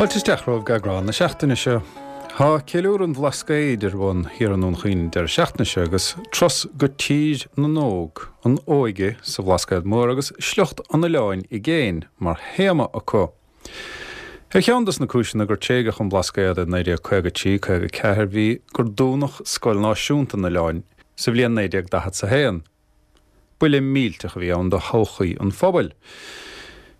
Fáilte isteach romhaibh go eagrán na seachtaine seo. Tá Ceiliúradh an Bhlascaoid ar bun thiar i nDún Chaoin an deireadh seachtaine seo agus turas go Tír na nÓg, an óige sa Bhlascaod Mór agus sliocht an oileáin i gcéin mar théama acu. Ar cheann dos na cúiseanna gur tréigeadh an Blascaod i 1953, 54 bhí gur dúnadh Scoil Náisiúnta an oileáin sa bhliain 1941. Buille millteach a bhí ann do thodhchaí an phobail.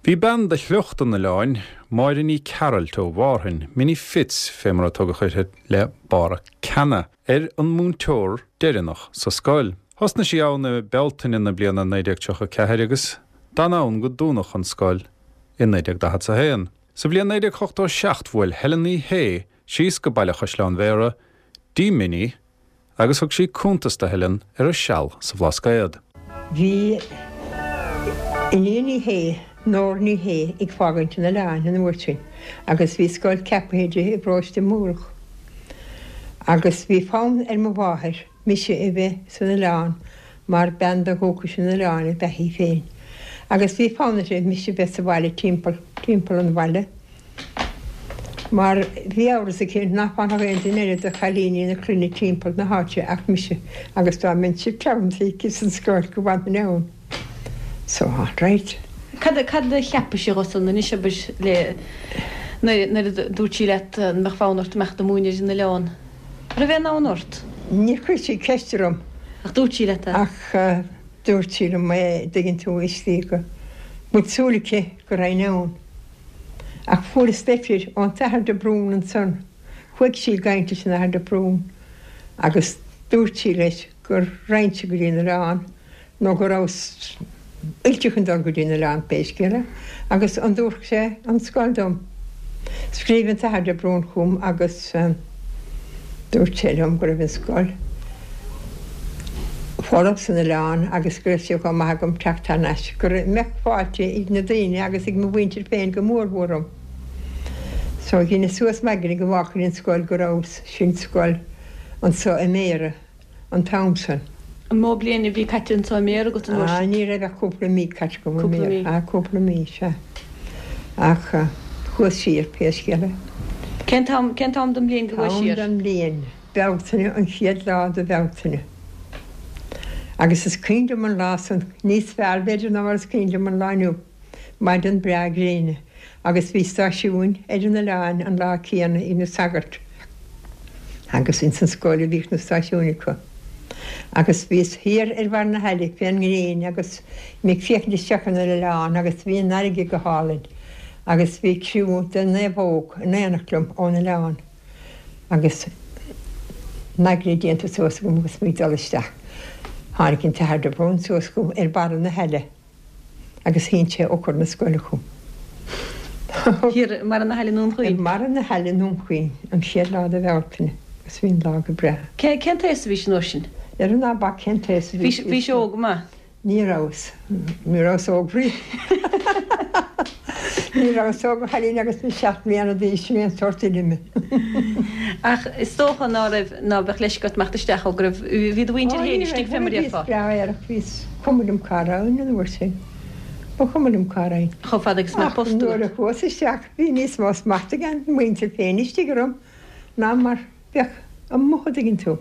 Bhí bean de shliocht an oileáin, Máire Ní Chearailt ó Mhárthain, Minnie Fitz fé mar a tugadh uirthi le barra ceana, ar an múinteoir deireanach sa scoil. Thosnaigh sí ann i Bealtaine na bliana 1934 agus d'fhan ann go dúnadh an scoil i 1941. Sa bhliain 1987 bhuail Helen Ní Shé síos go Baile Chaisleáin Bhéarra dtí Minnie agus thug sí cuntas do Helen ar a seal sa Bhlascaod. Bhí Iníon Ní Shé, Nóra Ní Shé, ag fágaint an oileáin an uair sin agus bhí scoil ceapaithe di i bparóiste Múrach. Agus bhí fonn ar mo mháthair mise a bheith san oileán mar bean de dhúchas an oileáin ab ea í féin. Agus bhí fonn uirthi mise a bheith sa bhaile timpeall, timpeall an bhaile. Mar bhí amhras aici nach bhfanfadh aon duine eile de chailíní na clainne timpeall na háite ach mise agus dá mbeinnse treabhanta aici san scoil go bhfanfainn ann. So, all right. Cad cad a cheapais dhó san anois abair le nuair nuair a dúirt sí leat an mbeadh fonn ort imeacht ag múineadh ar an oileán? Raibh aon fhonn ort? Níor chuir sí ceist orm. Ach dúirt sí leat é? Ach dúirt sí liom é, dtuigeann tú, istigh go bhfuil súil aici go raghainn ann. Ach fuaireas leitir ón tAthair de Brún ansan. Chuaigh sí ag caint leis an Athair de Brún agus dúirt sí leis go raghainnse go dtí an oileán nó go rabhas oilte chun dul go dtí an oileán pé scéal é agus an dtabharfadh sé an scoil dom. Scríobh an tAthair de Brún chugam agus dúirt sé liom go raibh an scoil folamh san oileán agus go raibh sé chomh maith agam teacht thar n-ais, go mbeadh fáilte ag na daoine agus ag mo mhuintir féin go mór mhór romham. So dheineas suas m'aigne go bhfágfainn an scoil go rabhas, sin scoil anso i mBéarra an t-am san. An mó bliain a bhí caite anso i mBéarra agat an uair sin? Ah, ní raibh ach cúpla mí caite agam i mBéarra. Ah, cúpla mí, sea. Ach chuas siar, pé scéal é. Cén t-am, cén t-am den mbliain go gcuais siar? T-am den mbliain. Bealtaine, an chéad lá de Bhealtaine. Agus is cuimhin liom an lá san níos fearr b'fhéidir ná mar is cuimhin liom an lá inniu. Maidin breá gréine agus bhí stáisiúin ar an oileán an lá céanna ag na sagairt agus ins an scoil a bhíodh na stáisiúin acu. Agus bhíos thiar ar bharr na haille fén ngréin agus mé ag féachaint isteach ar an oileán agus bhí an fharraige go hálainn agus bhí criú de naomhóg in éineacht liom ón oileán. Agus m'aigne déanta suas agam agus mé ag dul isteach, tháinig an tAthair de Brún suas chugam ar barra na haille agus shín sé eochair na scoile chugam. Thiar i mbarra na haille i nDún Chaoin? I mbarra na haille i nDún Chaoin, an chéad lá de Bhealtaine, agus bhí an lá go breá. Cén t-aos a bhís an uair sin? Dhera ná bac cén t-aos a bhí. Bhís óg go maith? Ní rabhas. Ní rabhas óg riamh. Ní rabhas óg a chailín agus mé 7 mbliana d'aois, sin é an sórt duine mé. Ach is dócha ná raibh, ná beadh leisce ort imeacht isteach ó go raibh, bhí do mhuintir féin istigh fé mar a déarfá. Bhíos breá aerach, bhíos, cuma liom cá raghainn an uair sin. Ba chuma liom cá raghainn. Chomh fada agus a mbeadh post agat. Ach nuair a chuas isteach bhí níos mó smachta ag an muintir féin istigh orm ná mar Bheadh amuigh a' dtuigeann tú.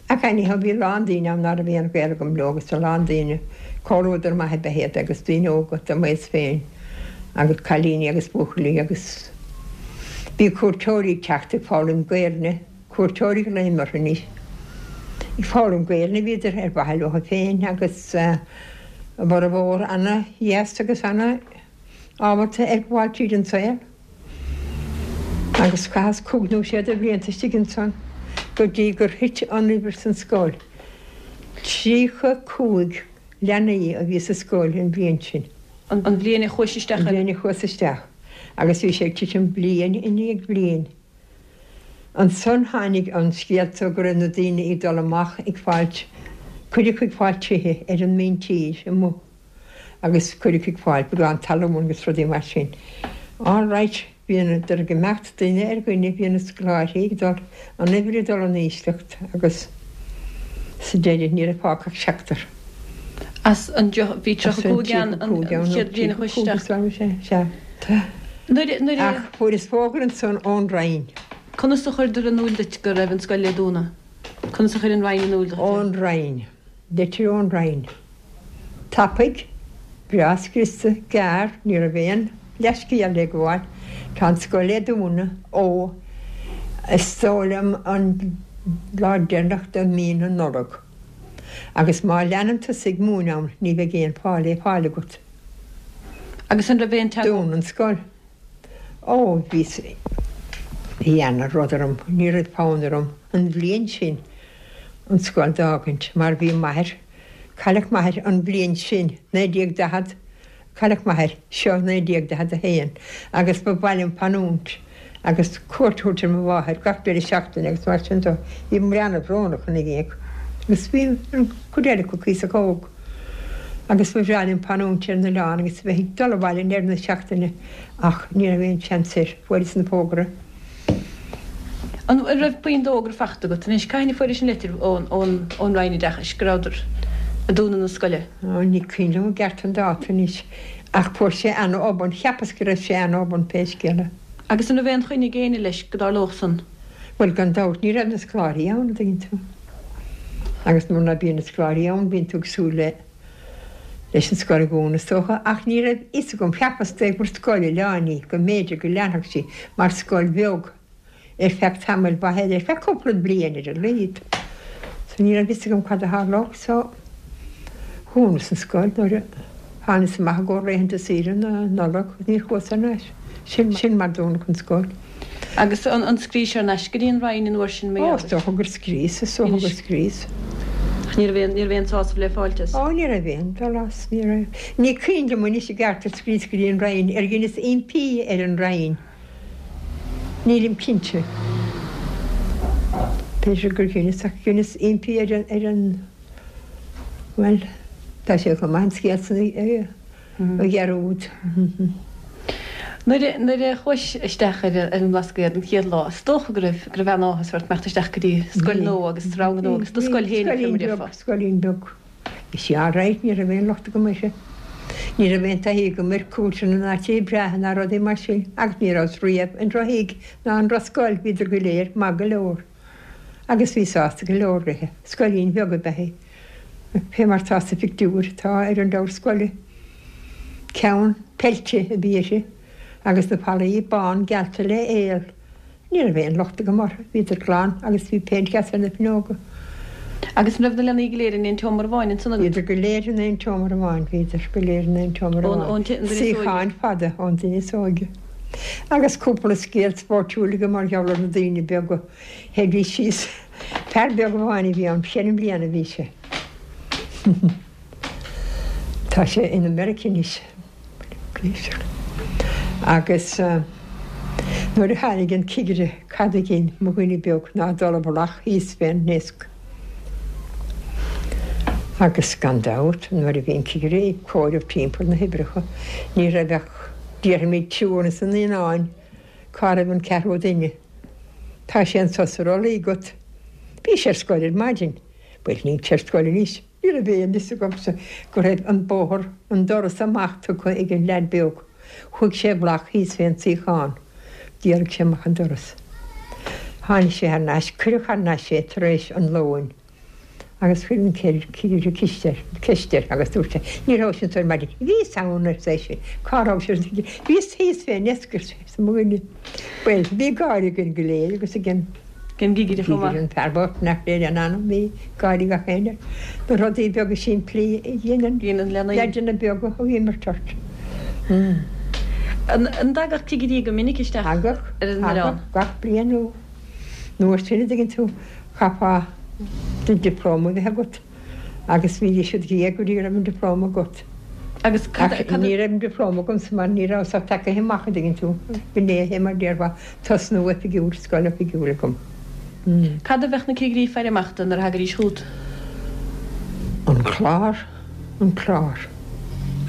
Ach anyhow bhí a lán daoine ann ná raibh aon ghaol agam leo agus a lán daoine, comhluadar maith ab ea iad agus daoine óga de m'aos féin agus cailíní agus buachaillí agus bhí cuairteoirí ag teacht ag foghlaim Gaelainne, cuairteoirí a ghlaoim orthu anois, ag foghlaim Gaelainne a bhíodar ar mhaithe leo féin agus a bhformhór ana-dheas agus ana ábalta ar ghabháil tríd an saol. Agus chaitheas cúig nó sé de bhlianta istigh ansan go dtí gur thit an uimhir san scoil. 35 leanaí a bhí sa scoil an bhliain sin. An bhliain a chuais isteach An bhliain a chuas isteach. Agus bhí sé ag titim bliain i ndiaidh bliain. Ansan tháinig an scéalta go raibh na daoine ag dul amach ag fáilt, cuid acu ag fáilt tithe ar an míntír amuigh. agus cuid acu ag fáil beagán talún agus rudaí mar sin. All right, bhíodar ag imeacht duine ar dhuine, bhí na scoláirí ag dul, an uimhir ag dul in ísleacht agus sa deireadh ní raibh fágtha ach seachtar. As an, bhí 35 ann an chéad bhliain a chuais isteach. Sea. Nuair, nuair a. Ach fuaireas fógra ansan ón Roinn. Conas a chuireadar in iúil duit go raibh an scoil le dúnadh? Conas a chuir an Roinn in iúil duit é? Ón Roinn. Litir ón Roinn. Tapaidh, breá scriosta, gearr, ní raibh aon leathscéal le gabháil, tá an scoil le dúnadh ó, is dóigh liom, an lá deireanach de mhí na Nollag. Agus má leanann tusa ag múineadh ann ní bheidh aon phá le fáil agat. Agus an raibh aon teagmháil. Dún an scoil. Ó, bhí, bhí ana rud orm, ní raibh fonn orm an bhliain sin an scoil d'fhágaint mar bhí m'athair, cailleadh m'athair an bhliain sin, 1940, cailleadh m'athair, seo 1941, agus ba mhaith liom fanúint agus cuairt a thabhairt ar mo mháthair gach deireadh seachtaine agus mar sin de. Bhí mé ana-bhrónach ina dhiaidh agus bhí an chuid eile acu cuíosach óg agus ba bhreá liom fanúint ar an oileán agus a bheith ag dul abhaile i ndeireadh na seachtaine ach ní raibh aon seans air, fuaireas an fógra. An raibh puinn d'fhógra fachta agat anois? Cathain a fuairis an litir ón ón Roinn Oideachais go rabhadar ag dúnadh na scoile? Ó, ní cuimhin liom i gceart an dáta anois ach fuair sé ana-obann, cheapas go raibh sé ana-obann pé scéal é. Agus an raibh aon choinne ag éinne leis go dtarlódh san? Bhuel, gan dabht, ní raibh na scoláirí ann, an dtuigeann tú. Agus nuair ná bíonn na scoláirí ann bíonn tú ag súil le leis an scoil a dhúnadh, is dócha. Ach ní raibh fhios agam, cheapas gur scoil oileáin í, go mb'fhéidir go leanfadh sí mar scoil bheag ar feadh tamaill mhaith eile, ar feadh cúpla bliain ar a laghad. So ní raibh fhios agam cad a tharlódh. So dhúnas an scoil nuair a thánas amach i gcomhair laethanta saoire na Nollag, níor chuas thar n-ais. Sin sin mar dúnadh an scoil. Agus an scríos thar n-ais go dtí an Roinn an uair sin mar gheall air? Ó, is dócha gur scríos, is dócha gur scríos. Ach ní raibh aon, ní raibh aon sásamh le fáilt as? Ó, ní raibh aon dul as, ní raibh. Ní cuimhin liom anois i gceart ar scríos go dtí an Roinn, ar dheineas impí ar an Roinn. Nílim cinnte. B'fhéidir gur dheineas, ach dheineas impí ar an, ar an, bhuel, tá sé chomh maith an scéal san a. a dhearúd. Nuair nuair a chuais isteach ar an mBlascaod an chéad lá, is dócha go raibh go raibh an-áthas ort imeacht isteach go dtí scoil nua agus rang nua agus do scoil féin fé mar a déarfá. Scoilín beag. Bhí sí alright, ní raibh aon locht agam uirthi. Ní raibh aon taithí agam ar cúirteanna ná tithe breátha ná rudaí mar sin agus ní rabhas riamh i ndrochthigh ná i ndrochscoil, bhíodar go léir maith go leor. Agus bhí sásta go leor léithe. Scoilín bheag ab ea í. Fé mar tá sa phictiúr atá ar an leabhar scoile. Ceann peilte a bhí uirthi agus na fallaí bán geallta le aol. Ní raibh aon locht agam orthu, bhíodar glan agus bhí péint dheas ar na fuinneoga. Agus an raibh na leanaí go léir in aon tseomra amháin ansan agat? Bhíodar go léir in aon tseomra amháin, bhíodar go léir in aon tseomra amháin. Suíocháin fada ón duine is óige. Agus cúpla scéal spóirtiúil agam mar gheall ar na daoine beaga. Théidís síos. Fear beag amháin a bhí ann, cheithre mbliana a bhí sé. Tá sé in America anois. Agus nuair a tháinig an cigire cad a dhein mo dhuine beag ná dul i bhfolach thíos fén ndeasc. Agus gan dabht nuair a bhí an cigire ag comhaireamh timpeall na huimhreacha ní raibh ach déarfaimid triúr ins na naíonáin Cá raibh an ceathrú duine? Tá sé anso sa rollaí agat. Bhí sé ar scoil ar maidin. Bhuel, níl sé ar scoil anois. Ní raibh aon fhios agamsa go raibh an bóthar, an doras amach tugtha ag an leaid beag. Chuaigh sé i bhfolach thíos fén suíochán. D'éalaigh sé amach an doras. Tháinig sé thar n-ais, cuireadh thar n-ais é tar éis an lóin. Agus chuir an cigire ceist air, ceist air agus dúirt sé, Ní rabhais anso ar maidin. Bhíos ann, arsa eisean. Cá rabhais, arsa an cigire. Bhíos thíos fén ndeasc, arsa mo dhuine. Bhuel, bhí gáire againn go léir agus ag an gcigire chomh maith. An fear bocht nach léir an anam, bhí gáire gach éinne air. Na rudaí beaga simplí a dhéanann leaideanna beaga a imirt ort. An dtagadh cigirí go minic isteach ar an oileán? Thagadh, gach bliain nó. An uair sin, an dtuigeann tú, chaithfeá do dioplóma a bheith agat agus bhídís id dhiaidh go dtí go raibh an dioplóma agat. Agus cad, Ach ní raibh an dioplóma agamsa mar ní rabhas ach tagaithe amach, an dtuigeann tú. B'in é mar déarfá, tosnú oifigiúil, scoil oifigiúil agam. Cad a bheadh na cigirí ag faire amach do nuair a thagaidís chugat? An clár, an clár.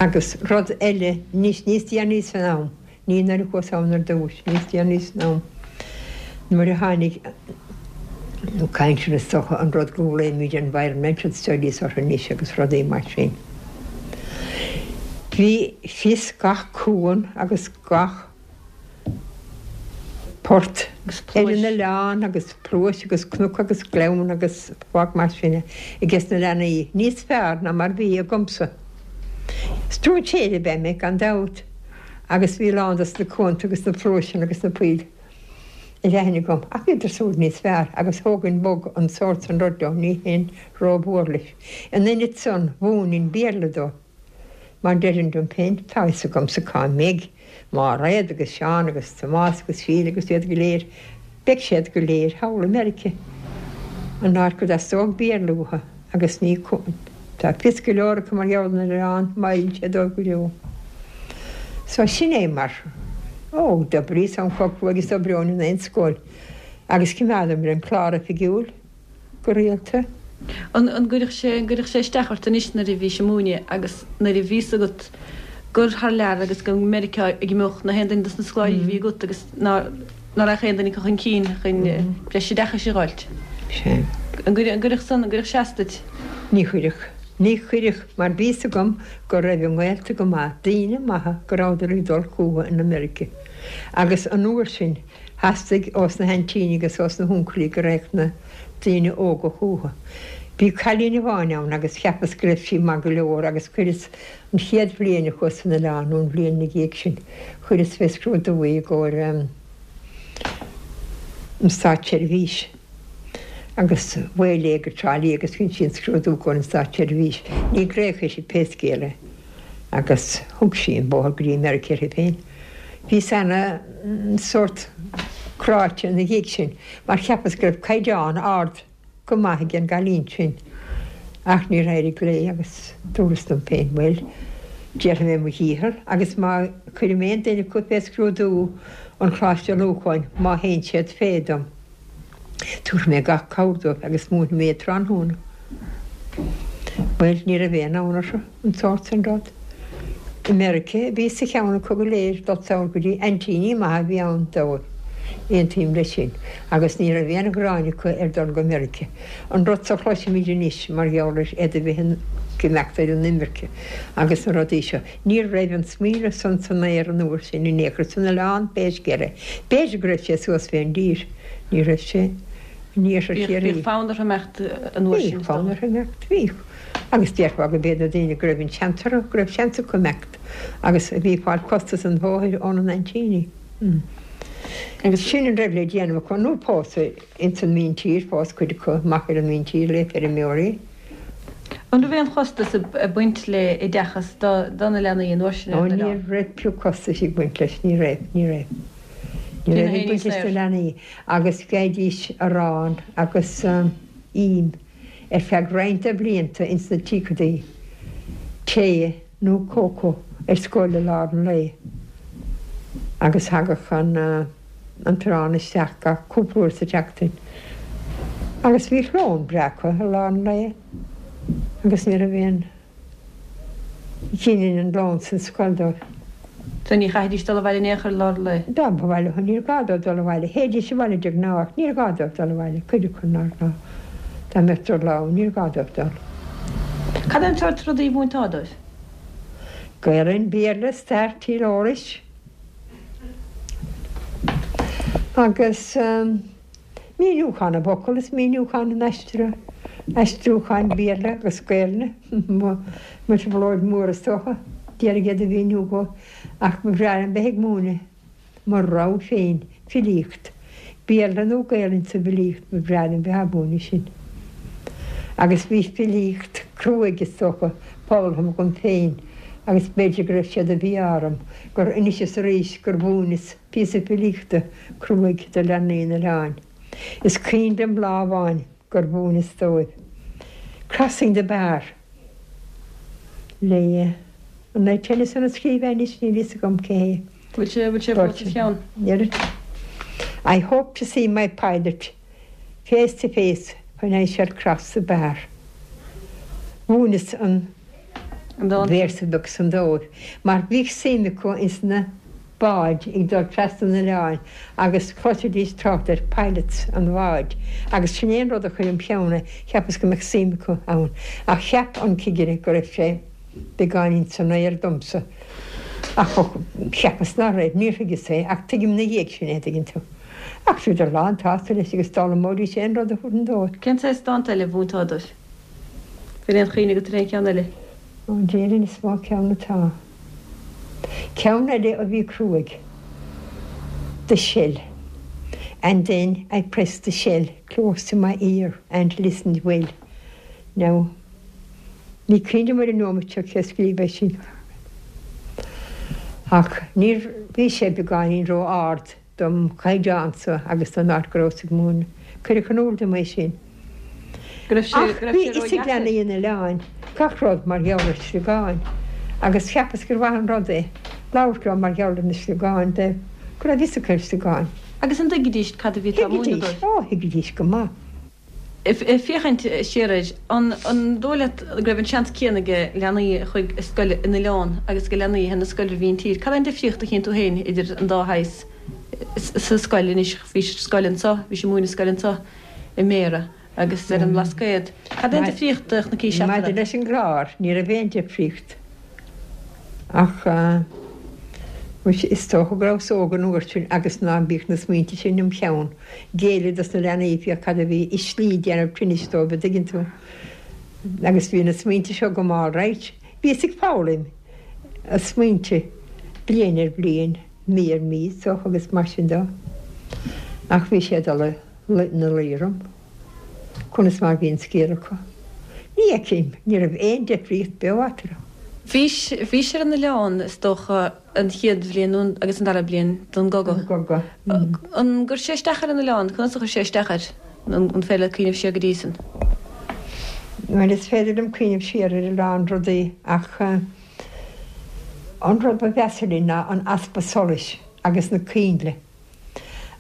Agus rud eile, níos, níos déanaí san am, Ní nuair a chuas ann ar dtús, níos déanaí san am, nuair a tháinig nó cainteanna is dócha, an rud go nglaoimid environmental studies orthu anois agus rudaí mar sin. Bhí fios gach cuan agus gach. Port ar an oileán agus pluais agus cnoc agus gleann agus fág mar sin é ages na leanaí, níos fearr ná mar bhí agamsa. Stróinséir ab ea mé gan dabht agus bhí a lán dos na cuanta agus na pluaiseanna agus na poill ar aithne agam ach bhíodar siúd níos fearr agus thógainn bog an sórt san rud leo, ní théinn rómhór leis. In ionad san mhúininn Béarla dóibh. Mar deirinn liom féin, tá a fhios agamsa cá mbeidh Máiréad agus Seán agus Tomás agus Síle agus iad go léir, beidh siad go léir thall i Meirice, an áit go dteastódh Béarla uathu agus ní tá fios go leor acu mar gheall ar an oileán, má fheileann sé dóibh go deo. So sin é mar, ó, d'oibríos am chomh cruaidh is d'oibreoinn in aon scoil agus choimeádamar an clár oifigiúil. go rialta. An gcuirfeadh sé, an gcuirfeadh sé isteach ort anois nuair a bhís ag múineadh agus nuair a bhí fhios agat gur thar lear agus go Meiriceá a d'imeodh na haon duine dos na scoláirí a bhí agat agus ná ná raghadh aon duine acu chun cinn chun breis oideachais a dh'fháilt. Sea. An gcuirfeadh, an gcuirfeadh san, an gcuirfeadh sé as duit? Ní chuirfeadh. Ní chuirfeadh mar bhí fhios agam go raibh a ngaolta go maith, daoine maithe go rabhadar ag dul chucu in America agus an uair sin Theastaigh ós na haintíní agus ós na huncailí go raghadh na daoine óga chucu. Bhí cailín amháin ann agus cheapas go raibh sí maith go leor agus chuireas an chéad bhliain a chuas san oileán nó an bhliain ina dhiaidh sin, chuireas fé scrúdú í i gcomhair an Státseirbhís agus mhaoil léi go Trá Lí agus dhein sí an scrúdú i gcomhair an Státseirbhís. Ní glaodh uirthi pé scéal é agus thug sí an bóthar go dtí Meiriceá uirthi féin. Bhíos ana sórt cráite ina dhiaidh sin mar cheapas go raibh caighdeán ard go maith ag an gcailín sin ach níor éirigh léi agus dúras liom féin bhuel déarfaidh mé mo dhícheall agus má chuirim aon duine acu fé scrúdú an Choláiste Lorcáin má théann siad fé dom. Tabharfaidh mé gach cabhair dóibh agus múinfidh mé iad tráthnóna. Bhuel, ní raibh aon fhonn orthu an sórt sin rud. I Meirice a bhí sa cheann acu go léir dul soir go dtí aintíní maithe a bhí ann dóibh, aontaím leis sin, agus ní raibh aon ghráin acu ar dul go Meirice. An rud so a chloisimid anois mar gheall ar iad a bheith ag imeacht ar an imirce agus na rudaí seo. Ní raibh an smaoineamh san san aer an uair sin in aon chor san oileán pé scéal é. B'fhéidir go raibh sé suas fén dtír. Ní raibh sé in iarthar Chiarraí. Bhíodh fonn orthu imeacht an uair sin, is dócha. Bhíodh fonn orthu imeacht, bhíodh. Agus déarfá go b'iad na daoine go raibh an seans orthu, go raibh seans acu imeacht agus a bhí ag fáil costas an bhóthair óna n-aintíní. Agus sin an raibh le déanamh acu, nó pósadh ins an míntír, phós cuid acu amach ar an míntír le feirmeoirí. An raibh aon chostas ag baint le oideachas do na leanaí an uair sin ar an oileán? Ó ní raibh pioc costais ag baint leis, ní raibh, ní raibh. Ní raibh ag baint leis na leanaí agus gheibhidís arán agus im ar feadh roinnt de bhlianta ins na tríochadaí, tae nó cócó ar scoil i lár an lae agus thagadh an. an t-arán isteach gach cúpla uair sa tseachtain agus bhíodh lón breá acu i lár an lae agus ní raibh aon ghinnin an lón san scoil dóibh. So ní chaithfidís dul abhaile in aon chor i lár an lae? Dá mba mhaith leo, níor ghá dóibh dul abhaile. Théidís abhaile de ghnáth ach níor ghá dóibh dul abhaile, cuid acu nár ghá. Dá mbeadh drochlá ann, níor ghá dóibh dul. Cad é an sórt rudaí a mhúinteá dóibh? Gaelainn, Béarla, Stair, Tíreolais. Agus míniúchán na bhfocal is míniúchán an aistriúcháin Béarla agus Gaelainne, mo thrioblóid mhór is dócha, d'iarraidh iad a mhíniú dhóibh, ach ba bhreá liom bheith ag múineadh mo rogha féin filíocht, Béarla nó Gaelainn sa bhfilíocht, ba bhreá liom bheith á mhúineadh sin. Agus bhí filíocht cruaidh is dócha foghlamtha agam féin agus b'fhéidir go raibh sé de mhí-ádh orm gur anois is arís gur mhúineas píosa filíochta cruaidh do leanaí an oileáin. Is cuimhin liom lá amháin gur mhúineas dóibh Crossing the Bar le, an é Tennyson a scríobh é anois, níl fhios agam cé hé. Bhfuil sé, bhfuil sé fós sa cheann? I hope to see my pilot face to face when I shall cross the bar. Mhúineas an véarsa beag san dóibh mar bhíodh suim acu ins na báid ag dul trasna an oileáin agus chloisidís trácht ar pilots an bháid agus sin é an rud a chuir im cheann é, cheapas go mbeadh suim acu ann ach cheap an cigire go raibh sé beagáinín san aer domsa ach cheapas ná raibh, níor thuigeas é ach tuigim ina dhiaidh sin é, an dtuigeann tú. Ach bhíodar lán tsásta leis agus d'fhoghlaimeoidís aon rud a thabharfainn dóibh. Cén saghas dánta eile a mhúinteá dóibh? Bhfuil aon chuimhne agat ar aon cheann eile? Ó, déarfainn is mó ceann atá. Ceann eile a bhí cruaidh. The Shell. And then I pressed the shell close to my ear and listened well. Now, ní cuimhin liom ar an neomat seo cé a scríobh é sin. Ach níor, bhí sé beagáinín ró-ard dom chaighdeánsa agus don áit go rabhas ag múineadh. Cuireadh in iúl dom é sin. Go raibh sé, Ach go raibh bhí sé fhios ag ródheacair. leanaí an oileáin gach rud mar gheall ar sliogáin agus cheapas gur mhaith an rud é labhairt leo mar gheall ar na sliogáin de go raibh fhios acu ar sliogáin. Agus an dtuigidís cad a bhí tú á múineadh Thuigidís, dóibh? ó thuigidís go maith. Ag féachaint siar air, an dóigh leat go raibh an seans céanna ag leanaí a chuaigh ar scoil in oileán agus ag leanaí a théann ar scoil ar mhíntír? Cad é an difríocht a chíonn tú féin idir an dá shaghas sa scoil anois? Bhís ar scoil anso, bhís ag múineadh scoil anso i mBéarra agus ar an mBlascaod. Cad é an difríocht a chonaicis Maidir eatarthu? leis an gclár, ní raibh aon difríocht ach is dócha go rabhas óg an uair sin agus ná bíodh na smaointe sin im cheann. Géilleadh dos na leanaí féach cad a bhí i slí déanamh tinnis dóibh, a dtuigeann tú. Agus bhí na smaointe seo agam all right. Bhíos ag foghlaim na smaointe bliain ar bhliain, mí ar mhí, is dócha, agus mar sin dó. Ach bhí sé ag dul ina luí orm conas mar bhí an scéal acu. Ní fheicim, ní raibh aon difríocht beo eatarthu. Bhís, bhís ar an oileán, is dócha, an chéad bhliain agus an dara bliain den gcogadh. Den gcogadh. An gcuir sé isteach ar an oileán? Conas a chuir sé isteach air? An féidir leat cuimhneamh siar go dtí san? Bhuel, is féidir liom cuimhneamh siar ar a lán rudaí ach an rud ba mheasa linn ná an easpa solais agus na coinnle.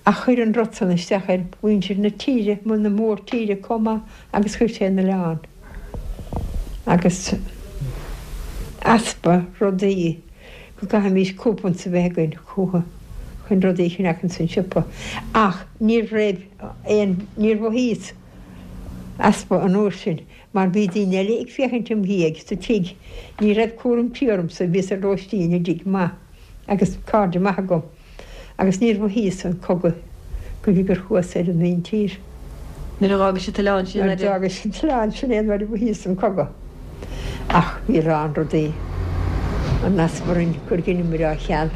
Ach chuir an rud san isteach ar mhuintir na tíre, na mórtíre comh maith agus chuir sé an oileán. Agus easpa rudaí, go gcaithfimís coupons a bheith againn chucu chun rudaí a cheannach ins an siopa. Ach ní raibh aon, níor mhothaíos easpa an uair sin mar bhí daoine eile ag féachaint im dhiaidh sa tigh. Ní raibh cúram tí ormsa, bhíos ar lóistín i dtigh maith agus cairde maithe agam. Agus níor mhothaíos an cogadh go dtí gur chuas ar an míntír. Nuair a d'fhágais an t-oileán sin Nuair a d'fhágais an t-oileán sin é nuair a mhothaíos an cogadh. Ach bhí a lán rudaí an easpa orainn gur dheineamair á cheal.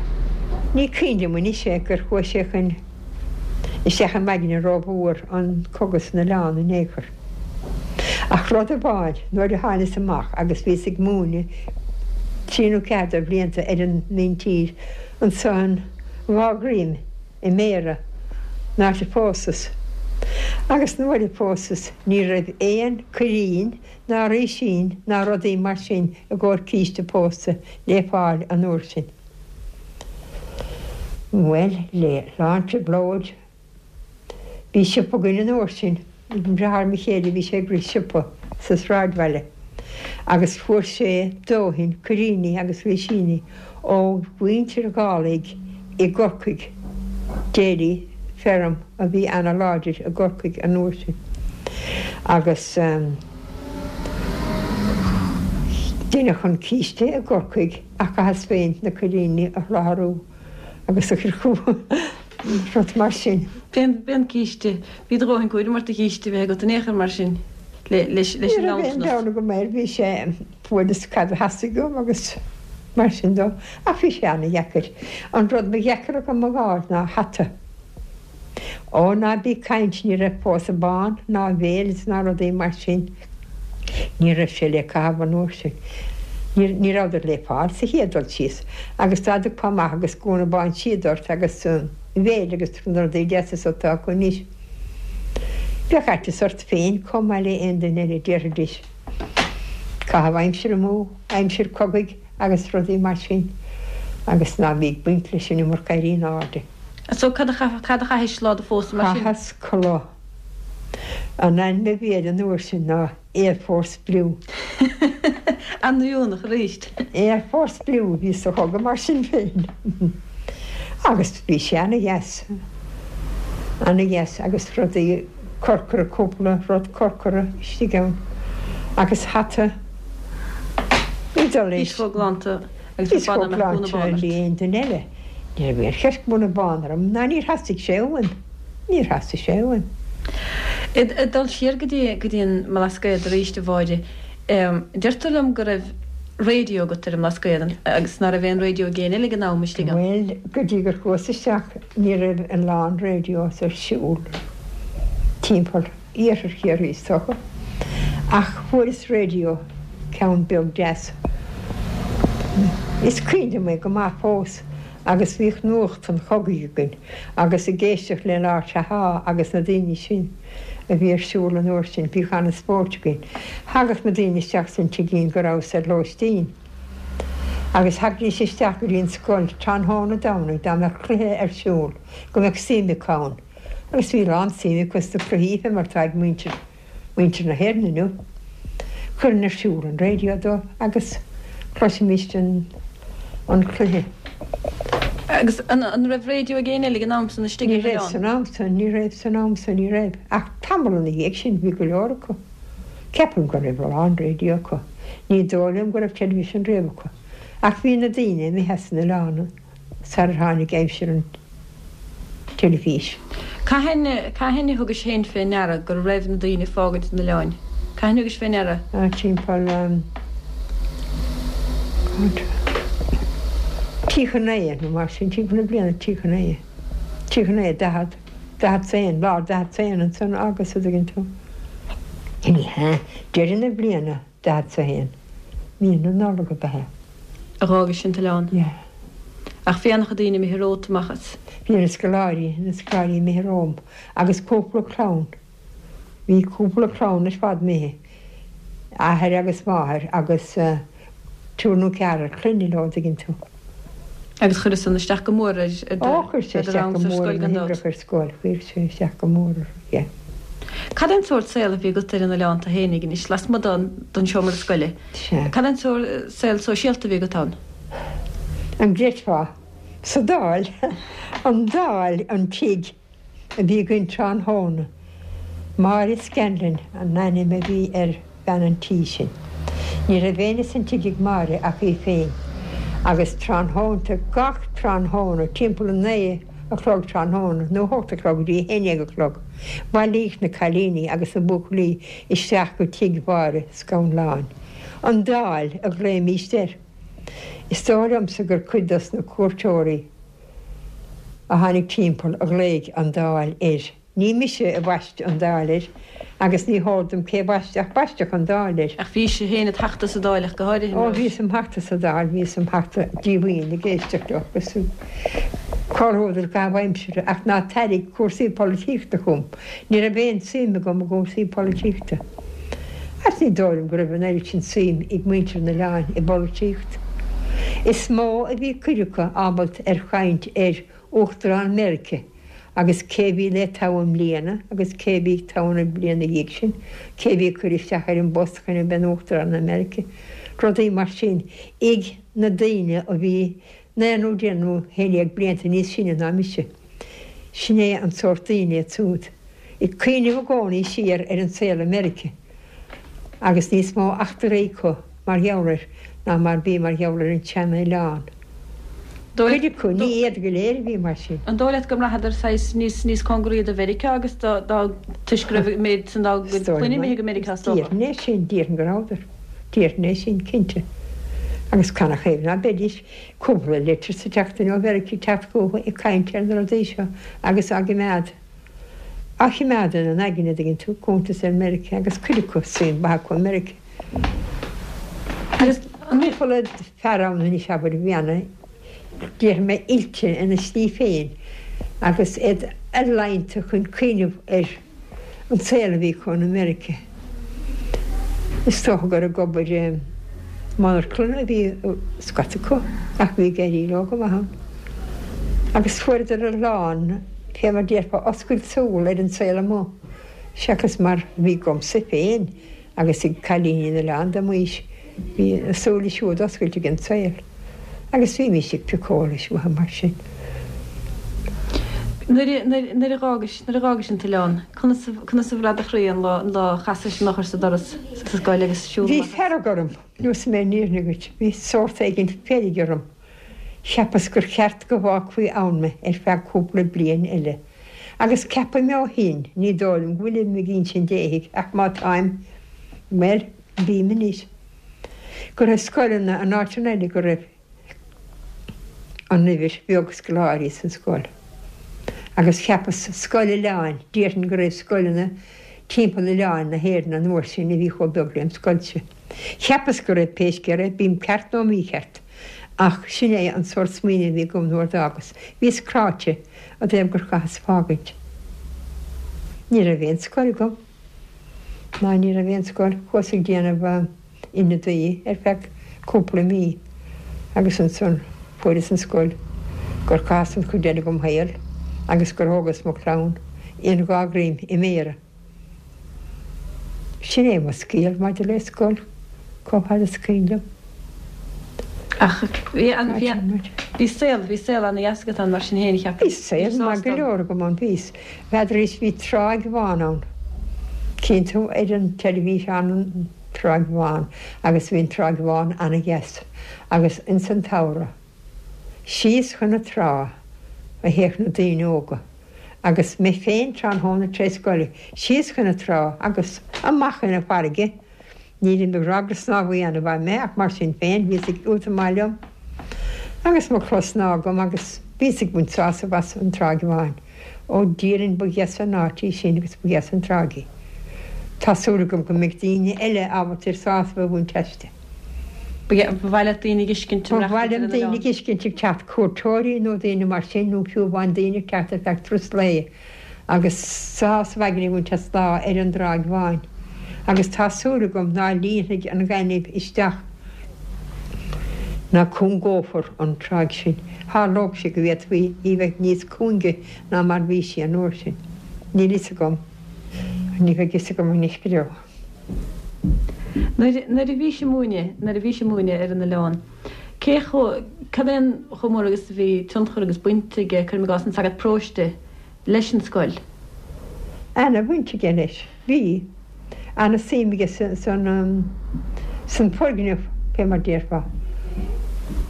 Ní cuimhin liom anois é gur chuaigh sé chun isteach i m'aigne rómhór an cogadh san oileán in aon chor. Ach rud amháin, nuair a tháinios amach agus bhíos ag múineadh trí nó ceathair de bhlianta ar an míntír ansan dhá dhroim i mBéarra, an áit a phósas. Agus nuair a phósas ní raibh aon cuirín ná rísín ná rudaí mar sin i gcomhair císte pósta le fáil an uair sin. Bhuel, le lán trioblóid. Bhí siopa againn an uair sin, ag deartháir mo chéile, bhí sé ag rith siopa sa sráidbhaile agus fuair sé dóthain cuiríní agus rísíní ó mhuintir Dhálaigh i gCorcaigh, Daly Firm a bhí ana-láidir i gCorcaigh an uair sin agus deineadh an císte i gCorcaigh ach chaitheas féin na cuiríní a sholáthrú agus a chur chucu. Rud mar sin. B'é an císte. Bhí do dhóthain cúraim ort do chíste a bheith agat in aon chor mar sin leis an Ní raibh aon nganntanas. dabht agam air, bhí sé, fuaireas cad a theastaigh uaim agus mar sin dó. Ach bhí sé ana-dheacair. An rud ba dheacra agam a dh'fháil ná hata. Ó ná bí ag caint, ní raibh pósadh bán ná veils ná rudaí mar sin. Ní raibh sé le caitheamh an uair sin. Ní rabhadar le fáil sa chéad dul síos. Agus dá dtiocfá amach agus gúna bán síoda ort agus veil agus na rudaí deasa so atá acu anois, bheadh aiteas ort féin chomh maith le aon duine eile, déarfaidís. Caitheamh aimsire amú, aimsir cogaidh agus rudaí mar sin agus ná bí ag baint leis an iomarca éirí in airde. So cad a chaithis lá do phósta mar sin? Chaitheas culaith. An ainm a bhí air an uair sin ná Air Force Blue. An-oiriúnach arís. Air Force Blue a bhí sa chogadh mar sin féin. Agus bhí sé ana-dheas. Ana-dheas agus rudaí corcra, cúpla rud corcra istigh ann. Agus hata. Bhí dul Bhís chomh glanta agus Bhíos ba chomh b'annamh go mbeadh gúna glanta bán ort. le aon duine eile. Ní raibh aon cheist gúna bán orm ná níor theastaigh sé uaim. Níor theastaigh sé uaim. Ag dul siar go dtí go dtí an mBlascaod arís, a Mháire, deirtear liom go raibh raidió agat ar an mBlascaod agus ná raibh aon raidió ag éinne eile ag an am istigh ann. Bhuel, go dtí gur chuas isteach ní raibh a lán radios ar siúl timpeall iarthar Chiarraí is dócha, ach fuaireas raidió, ceann beag deas. Is cuimhin liom é go maith fós. Agus bhíodh nuacht an chogaidh againn agus ag éisteacht le Lá Chatha agus na daoine sin a bhí ar siúl an uair sin, bhíodh an-spóirt againn. Thagadh na daoine isteach san tigín go rabhas ar lóistín agus thagaidís isteach go dtí an scoil tráthnóna Domhnaigh dá mbeadh cluiche ar siúl go mbeadh suim acu ann agus bhí a lán suim acu sna cluichí fé mar atá ag muintir muintir na hÉireann inniu. Chuirinn ar siúl an raidió dóibh agus chloisimíst an an cluiche. Agus an raibh raidió ag éinne eile ag an am san istigh ar an oileán? Ní raibh san am san, ní raibh san am san, ní raibh. Ach tamall ina dhiaidh sin bhí go leor acu. Ceapaim go raibh a lán raidió acu. Ní dóigh liom go raibh television riamh acu. Ach bhí na daoine imithe as an oileán. sarar tháinig aimsir an teilifís. Cathain, cathain a thugais féin fé ndeara go raibh na daoine ag fágaint an oileáin? Cathain a thugais fé ndeara? Timpeall 39 nó mar sin, timpeall na bliana 39, 39, 40, 41, lár 41 ansan agus a' dtuigeann tú. Ní hea, deireadh na bliana. 41. Mí na Nollag ab ea. A dh'fhágais an t-oileán. Yeah. Ach bhí an-chuid daoine imithe romhat amach as. Bhí na scoláirí, na scoláirí imithe romham agus cúpla clann, bhí cúpla clann ar fad imithe, athair agus máthair agus triúr nó ceathrar clainne leo, an dtuigeann tú. Agus chuir san isteach go mór ar do Ó, chuir sé isteach go mór ar na hoibreacha ar scoil, chuir sé isteach go mór orthu, yeah. Cad é an sórt saol a bhí agat ar an oileán tú fhéinig anois, lasmuigh den seomra scoile? Sea. Cad é an sórt saol sóisialta a bhí agat ann? An gcreidfeá? Sa Dáil, an Dáil, an tigh a bhí againn tráthnóna. Máire Scanlon an ainm a bhí ar bhean an tí sin. Ní raibh éinne san tigh ag Máire ach í féin agus tráthnónta, gach tráthnóna, timpeall a naoi a chlog tráthnóna nó a hocht a chlog go dtí a haon dhéag a chlog, bhailíodh na cailíní agus na buachaillí isteach go tigh Mháire Scanláin. An Dáil a ghlaoimíst air. Is dóigh liomsa gur cuid dos na cuairteoirí a tháinig timpeall a ghlaoigh an Dáil air. Ní mise a bhaist an Dáil air agus ní heol dom cé bhaist ach baisteadh an Dáil air. Ach bhís féin id theachta sa Dáil ach go háirithe, Ó, bhíos im theachta sa Dáil, bhíos im theachta díomhaoin ag éisteacht leo agus comhluadar i gcaitheamh aimsire ach ná tairrig cúrsaí polaitíochta chugam. Ní raibh aon suim agam i gcúrsaí polaitíochta. Agus ní dóigh liom go raibh an oiread sin suim ag muintir an oileáin i bpolaitíocht. Is mó a bhí cuid acu ábalta ar chaint ar Uachtarán Meirice agus cé bhí le toghadh i mbliana agus cé bhí toghadh an bhliain ina dhiaidh sin, cé bhí ag cur isteach ar an bpost chun a bheith ina Uachtarán ar Meirice, rudaí mar sin ag na daoine a bhí naoi nó deich nó haon dhéag blianta níos sine ná mise. Sin é an sórt daoine iad siúd. Ag cuimhneamh i gcónaí siar ar an saol i Meirice agus níos mó eachtraí acu mar gheall air ná mar bhí mar gheall ar an tsean-oileán. Cuid acu, ní iad go léir a bhí mar sin. An dóigh leat go mbraitheadar saghas níos níos cóngaraí do Mheiriceá agus do do toisc go raibh an méid san dá gcuid clainne imithe go Meiriceá is dócha? Déarfainn é sin, déarfainn go rabhadar. Déarfainn é sin, cinnte. Agus canathaobh ná beidís cúpla litir sa tseachtain ó Mheiriceá ag teacht chucu ag caint ar na rudaí seo agus á gcimeád, á chimeád ina n-aigne, an dtuigeann tú, cuntas ar Mheiriceá agus cuid acu, suim mhaith acu i Meiriceá. Agus cúpla fear ann anois, abair, a bhí ana, déarfaidh mé, oilte ina slí féin agus iad ealaíonta chun cuimhneamh ar an saol a bhí acu in America. Is dócha gur ag obair i monarchana a bhí scata acu ach bhí ag éirí leo go maith ann. Agus fuaireadar a lán, fé mar déarfá, oscailt súl ar an saol amuigh seachas mar a bhí agamsa féin. Agus ag cailíní an oileáin de m'aois, bhí a súile siúd oscailte ag an saol, agus bhímís ag piocadh eolais uathu mar sin. Nuair a, nuair a dh'fhágais, nuair a dh'fhágais an t-oileán, conas a, conas a bhraith do chroí an lá, an lá a chasais an eochair sa doras sa scoil agus siúl Bhí amach as? fearg orm, neosfaidh mé an fhírinne dhuit, bhí sórt éigin feirge orm. Cheapas gur cheart go bhfágfaí ann mé ar feadh cúpla bliain eile. Agus ceapaim ó shin, ní dóigh liom go bhfuilim ag insint éithigh ach má táim, bhuel, bím anois, go raibh scoileanna in áiteanna eile go raibh an uimhir bheag scoláirí san scoil. Agus cheapas scoil oileáin, déarfainn go raibh scoileanna timpeall oileáin na hÉireann an uair sin a bhí chomh beag lem scoilse. Cheapas go raibh, pé scéal é, bím ceart nó mícheart, ach sin é an sórt smaoineamh a bhí agam nuair d'fhágas. Bhíos cráite i dtaobh gur chaitheas fágaint. Ní raibh aon scoil agam. Ná ní raibh aon scoil. Chuas ag déanamh ionadaí ar feadh cúpla mí agus ansan fuaireas an scoil gur chaitheas an chuid eile dhom shaol agus gur thógas mo chlann in dhá ghreim i méara. Sin é mo scéal maidir le scoil, chomh fada is cuimhin liom. Ach bhí an, bhí an, bhí saol, bhí saol ana-dheas agat ann mar sin féin, cheapfainn. Bhí saol maith go leor agam ann, bhí. N'fheadar bhí Tráigh Bhán ann. Cíonn tú ar an teilifís an Tráigh Bhán agus bhí an Tráigh Bhán ana-dheas agus ins an tsamhradh, síos chun na trá a théadh na daoine óga agus mé féin tráthnóna tar éis scoile, síos chun na trá agus amach chun na farraige. Nílim ag rá gur snámhaí ana-mhaith mé ach mar sin féin bhíos ag iontach maith liom agus mo chulaith snámha agam agus bhíos ag baint sásamh as an Tráigh Bháin. Ó déarfainn ba dheas an áit í sin agus ba dheas an tráigh í. Tá súil agam go mbeidh daoine eile ábalta ar sásamh a bhaint aisti. Ba mhaith leat daoine a dh'fheiscint Ba mhaith liom daoine a dh'fheiscint ag teacht, cuairteoirí nó daoine mar sin nó fiú amháin daoine ag teacht ar feadh turas lae. agus sásamh aigne a bhaint as lá ar an dTráigh Bháin, agus tá súil agam ná líonfaidh an gaineamh isteach ná cúngófar an tráigh sin. Tharlódh sé go bhféadfaí í bheith níos cúinge ná mar bhí sí an uair sin. Níl fhios agam. Ní bheidh fhios agam anois go deo. Nuair, nuair a bhís ag múineadh, nuair a bhís ag múineadh ar an oileán, cé chomh, cad é an chomh mór agus a bhí tionchar agus baint aige, cuirim i gcás, an sagart paróiste leis an scoil? Ana bhaint aige leis. Bhí. Ana suim aige san, san foirgneamh, fé mar déarfá.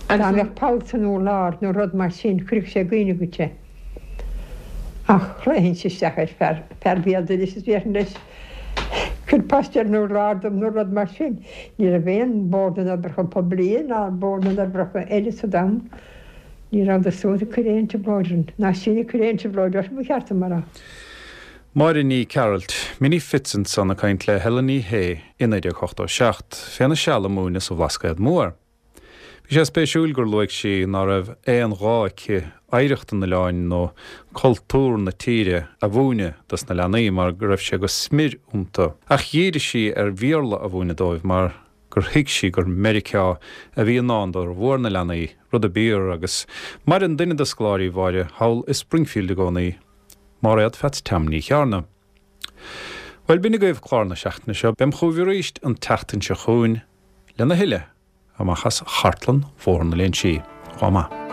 Dá mbeadh poll san urlár nó rud mar sin, chuirfeadh sé i gcuimhne dhuit é. Ach ghlaofainnse isteach ar fear, fear béal dorais is déarfainn leis, Cuir paiste ar an urlár dom nó rud mar sin. Ní raibh aon Bord na nOibreacha Poiblí ná Bord na nOibreacha eile sa domhan. Ní rabhadar siúd ag cur aon trioblóid orainn, ná sinn ag cur aon trioblóid orthu, ba cheart dom a rá. Máire Ní Chearailt, Minnie Fitz ansan ag caint le Helen Ní Shé i 1987, féna seal ag múineadh sa Bhlascaod Mór. Bhí sé spéisiúil gur luaigh sí ná raibh aon ghá aici oidhreacht an oileáin nó cultúr na tíre a mhúineadh dos na leanaí mar go raibh sé go smior iontu. Ach dhírigh sí ar Bhéarla a mhúineadh dóibh mar gur thuig sí gur Meiriceá a bhí i ndán d'fhormhór na leanaí, rud a b'fhíor agus maireann duine de scoláirí Mháire thall i Springfield i gcónaí, Máiréad Pheats Tom Ní Chearna. Bhuel, b'in agaibh clár na seachtaine seo. Beam chugaibh arís an tseachtain seo chugainn. Lena thuilleadh amach as Chartlann Bhóthar na Léinsí. Lá maith.